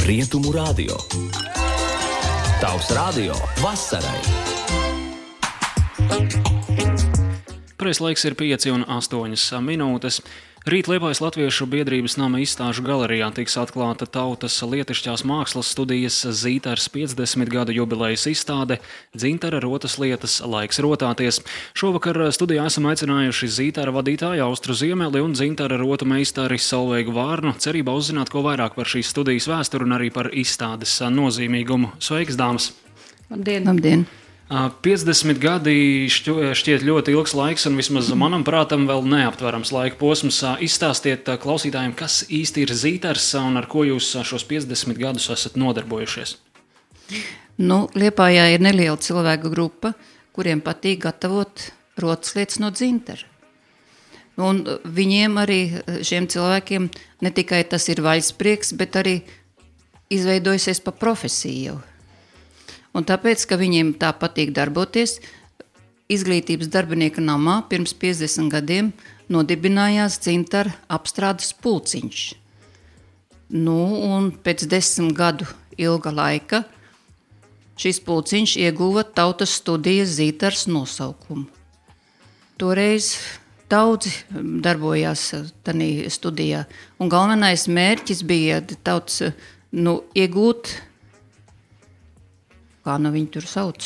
Rietumu radio. Tavs radio vasarai. Pareizais laiks ir 5:08 minūtes. Rīt Liepājas Latviešu biedrības nama izstāžu galerijā tiks atklāta tautas lietišķās mākslas studijas Zītars 50 gadu jubilejas izstāde Dzintara rotas lietas laiks rotāties. Šovakar studijā esam aicinājuši Zītara vadītāju Austru Ziemeli un Dzintara rotu meistari Solveigu Vārnu, cerībā uzzināt ko vairāk par šīs studijas vēsturi un arī par izstādes nozīmīgumu. Sveiks, dāmas! Labdien! 50 gadi šķiet ļoti ilgs laiks un vismaz manam prātam vēl neaptverams laika posms. Izstāstiet klausītājiem, kas īsti ir Zītars un ar ko jūs šos 50 gadus esat nodarbojušies. Liepājā ir neliela cilvēku grupa, kuriem patīk gatavot rotas lietas no dzintara. Un viņiem arī, šiem cilvēkiem, ne tikai tas ir vaļsprieks, bet arī izveidojusies pa profesiju jau. Un tāpēc, ka viņiem tā patīk darboties, izglītības darbinieka namā pirms 50 gadiem nodibinājās dzintara apstrādes pulciņš. Un pēc 10 gadu ilga laika šis pulciņš ieguva tautas studijas Zītars nosaukumu. Toreiz daudzi darbojās tanī studijā, un galvenais mērķis bija tautas iegūt, kā viņi tur sauc,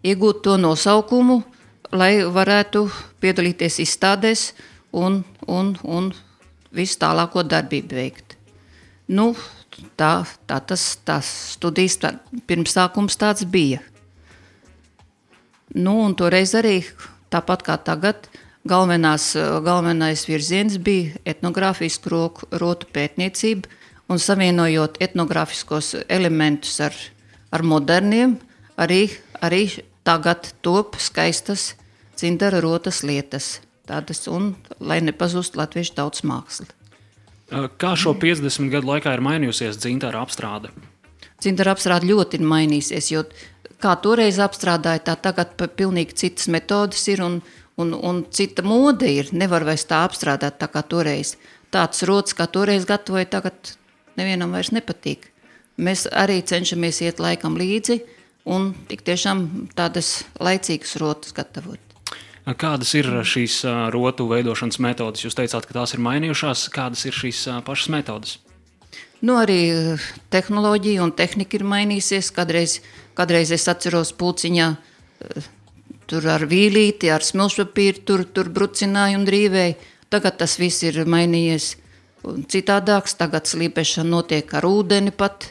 iegūt to nosaukumu, lai varētu piedalīties izstādēs un visu tālāko darbību veikt. Tas studijas pirmsākums tāds bija. Un toreiz arī, tāpat kā tagad, galvenais virziens bija etnogrāfisku rotu pētniecība, un savienojot etnogrāfiskos elementus ar moderniem, arī tagad top skaistas dzintara rotas lietas, tādas, un lai nepazust latviešu tautas māksla. Kā šo 50 gadu laikā ir mainījusies dzintara apstrāde? Dzintara apstrāde ļoti ir mainīsies, jo kā toreiz apstrādāja, tā tagad pilnīgi citas metodas ir un cita mode ir. Nevar vairs tā apstrādāt tā kā toreiz. Tāds rotas, kā toreiz gatavoja, tagad nevienam vairs nepatīk. Mēs arī cenšamies iet laikam līdzi un tik tiešām tādas laicīgas rotas gatavot. Kādas ir šīs rotu veidošanas metodas? Jūs teicāt, ka tās ir mainījušās. Kādas ir šīs pašas metodas? Arī tehnoloģija un tehnika ir mainīsies. Kādreiz es atceros pulciņā tur ar vīlīti, ar smilšpapīru, tur brucināju un drīvēju. Tagad tas viss ir mainījies citādāks, tagad slīpešana notiek ar ūdeni pat,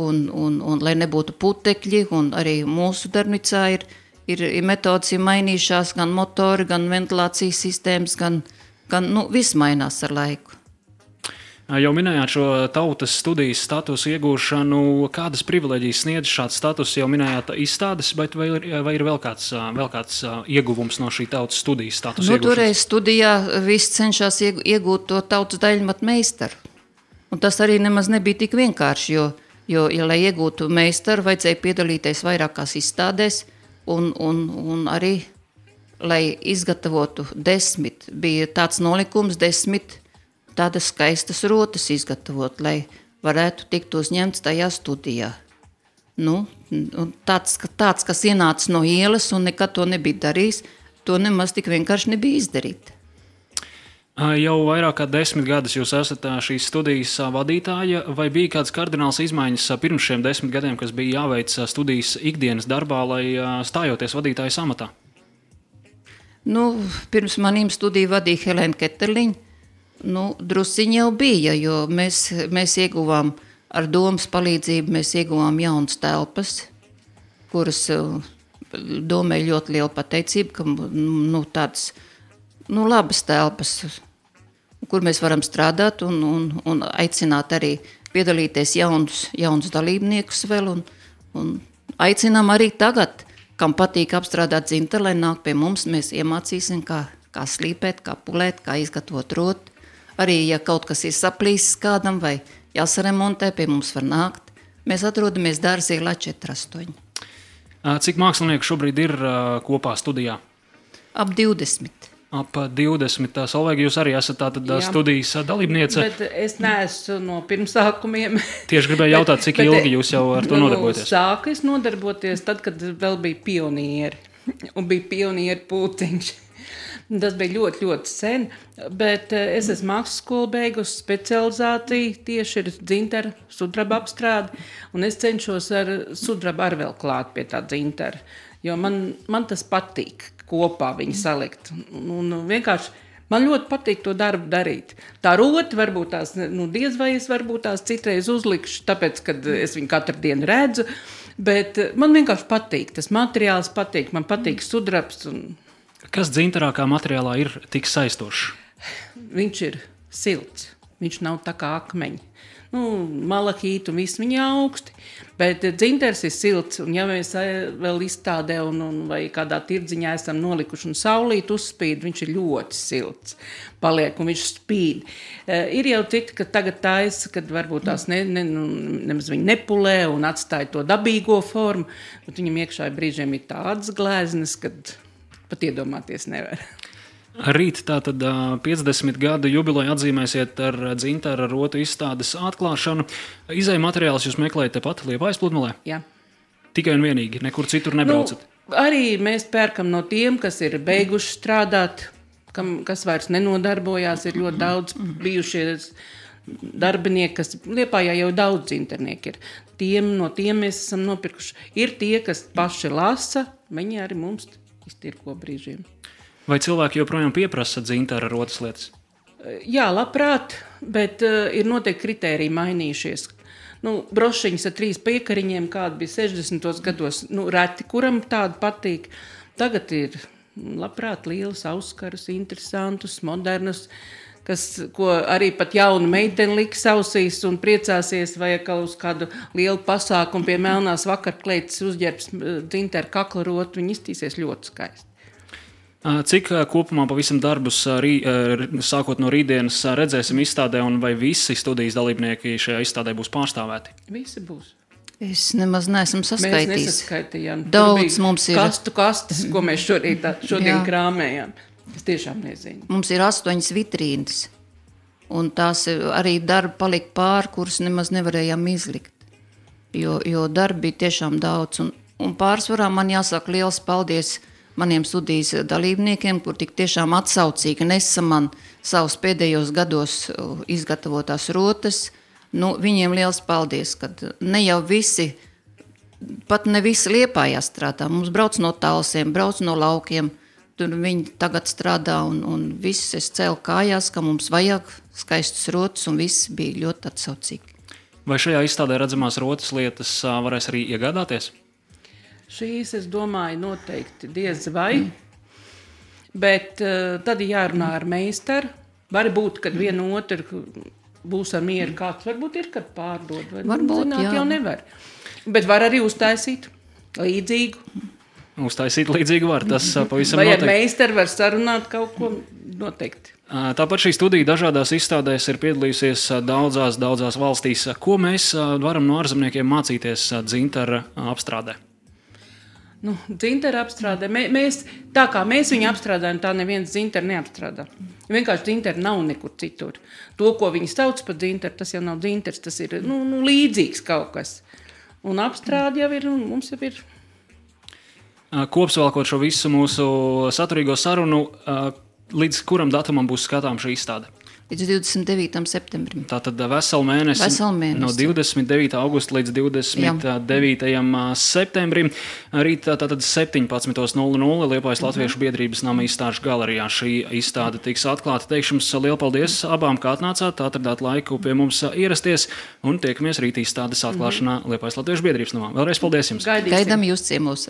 un lai nebūtu putekļi, un arī mūsu darbnīcā ir metodas mainījušās, gan motori, gan ventilācijas sistēmas, gan viss mainās ar laiku. Jau minējāt šo tautas studijas statusu iegūšanu, kādas privileģijas sniedz šāds status, jau minējāt izstādes, bet vai ir vēl kāds ieguvums no šī tautas studijas statusa iegūšanas? Toreiz studijā viss cenšas iegūt to tautas daļmatu meistaru. Un tas arī nemaz nebija tik vienkārši, jo lai iegūtu meistaru, vajadzēja piedalīties vairākās izstādēs, un arī, lai izgatavotu 10, bija tāds nolikums 10 tādas skaistas rotas izgatavot, lai varētu tikt uzņemts tajā studijā. Tāds, kas ienāca no ielas un nekad to nebija darījis, to nemaz tik vienkārši nebija izdarīt. Jau vairāk kā 10 gadus jūs esat šīs studijas vadītāja, vai bija kāds kardināls izmaiņas pirms šiem 10 gadiem, kas bija jāveic studijas ikdienas darbā, lai stājoties vadītājas amatā? Pirms manīm studiju vadīja Helēna Keterliņa. Drusciņi jau bija, jo mēs ieguvām ar domas palīdzību, mēs ieguvām jaunas telpas, kuras domē ļoti liela pateicība, ka tādas labas telpas, kur mēs varam strādāt un aicināt arī piedalīties jaunus dalībniekus vēl un aicinām arī tagad, kam patīk apstrādāt dzintaru, lai nāk pie mums, mēs iemācīsim, kā slīpēt, kā pulēt, kā izgatavot rotu. Arī, ja kaut kas ir saplīsis kādam vai jāsaremontē, pie mums var nākt. Mēs atrodamies Dārzielā 4-8. Cik mākslinieku šobrīd ir kopā studijā? Ap 20. ap 20. Solveiga, jūs arī esat tātad studijas dalībniece. Bet es neesmu no pirmsākumiem. Tieši gribēju jautāt, cik ilgi jūs jau ar to nodarbojaties? Sāku es nodarboties tad, kad vēl bija pionieri. Un bija pionieru pulciņš. Tas bija ļoti, ļoti sen. Bet es esmu mākslas skolu beigusi, specializāciju tieši ir dzintara sudraba apstrāde. Un es cenšos ar sudrabu ar vēl klāt pie tā dzintara. Jo man tas patīk kopā viņu salikt. Un vienkārši man ļoti patīk to darbu darīt. Tā roti varbūt tās, diez vai es varbūt tās citreiz uzlikšu, tāpēc, kad es viņu katru dienu redzu, bet man vienkārši patīk, tas materiāls patīk, man patīk sudrabs. Kas dzintarā kā materiālā ir tik saistošs? Viņš ir silts, viņš nav tā kā akmeņi. Malahīti un viss viņi augsti, bet dzintars ir silts, un ja mēs vēl izstādē vai kādā tirdziņā esam nolikuši un saulīt uzspīd, viņš ir ļoti silts, paliek un viņš spīd. Ir jau citi, ka tagad taisa, kad varbūt tās nemaz viņi nepulē un atstāja to dabīgo formu, bet viņam iekšā brīžiem ir tādas glēznes, kad pat iedomāties nevar. Rīt tātad 50 gadu jubileju atzīmēsiet ar dzintara rotu izstādes atklāšanu. Izēju materiālus jūs meklējat tepat Liepājas pludmalē? Jā. Tikai un vienīgi, nekur citur nebraucat? Arī mēs pērkam no tiem, kas ir beiguši strādāt, kas vairs nenodarbojās, ir ļoti daudz bijušies darbinieki, kas Liepājā jau daudz dzintarnieki ir. No tiem mēs esam nopirkuši. Ir tie, kas paši lasa, viņi arī mums iztirko brīžiem. Vai cilvēki joprojām pieprasa dzintara rotas lietas? Jā, labprāt, bet ir noteikti kritēriji mainījušies. Brošiņas ar 3 piekariņiem, kāda bija 60. gados, reti, kuram tāda patīk. Tagad ir labprāt lielas auskarus, interesantus, modernus, ko arī pat jauna meitene liks ausīs un priecāsies, vai uz kādu lielu pasākumu pie melnās vakarkleites uzģērbs dzintara kakla rotu, viņi iztīsies ļoti skaisti. Cik kopumā pavisam darbus sākot no rītdienas redzēsim izstādē un vai visi studijas dalībnieki šajā izstādē būs pārstāvēti? Visi būs. Es nemaz neesmu saskaitījis. Mēs nesaskaitījām. Daudz mums ir. Kastes, ko mēs šodien krāmējām. Es tiešām nezinu. Mums ir 8 vitrīnas. Un tās arī darbi palika pāri, kurus nemaz nevarējām izlikt. Jo darbi bija tiešām daudz. Un pārsvarā man jāsaka liels paldies maniem studijas dalībniekiem, kur tik tiešām atsaucīgi nesa man savus pēdējos gados izgatavotās rotas. Viņiem liels paldies, kad ne jau visi, pat ne visi Liepājā strādā. Mums brauc no Talsiem, brauc no laukiem, tur viņi tagad strādā un viss es cēlu kājās, ka mums vajag skaistus rotas un viss bija ļoti atsaucīgi. Vai šajā izstādē redzamās rotas lietas varēs arī iegādāties? Šīs, es domāju, noteikti diez vai, bet tad jārunā ar meistaru. Var būt, kad vienu otru būs ar mieru kāds, varbūt ir, kad pārdod. Varbūt, zināt, jā. Jau nevar. Bet var arī uztaisīt līdzīgu. Uztaisīt līdzīgu var, tas pavisam vai noteikti. Vai ar meistaru var sarunāt kaut ko noteikti. Tāpat šī studija dažādās izstādēs ir piedalījusies daudzās valstīs. Ko mēs varam no ārzemniekiem mācīties dzintara apstrādē? Dzintara apstrādē. Tā kā mēs viņu apstrādājam, tā neviens dzintara neapstrādā. Vienkārši dzintara nav nekur citur. To, ko viņi sauc par dzintaru, tas jau nav dzintars, tas ir līdzīgs kaut kas. Un apstrāde jau ir, un mums jau ir. Kopsavilkot šo visu mūsu saturīgo sarunu, līdz kuram datumam būs skatām šī izstāde? Līdz 29. septembrim. Tātad veselu mēnesi. No 29. augusta līdz 29. septembrim. Rīt tātad 17:00 Liepājas Latviešu biedrības nama izstāžu galerijā. Šī izstāde tiks atklāta. Teikšu jums lielu paldies abām, kā atnācāt, atradāt laiku pie mums ierasties un tiekamies rīt izstādes atklāšanā Liepājas Latviešu biedrības namā. Vēlreiz paldies jums. Gaidām jūs ciemos.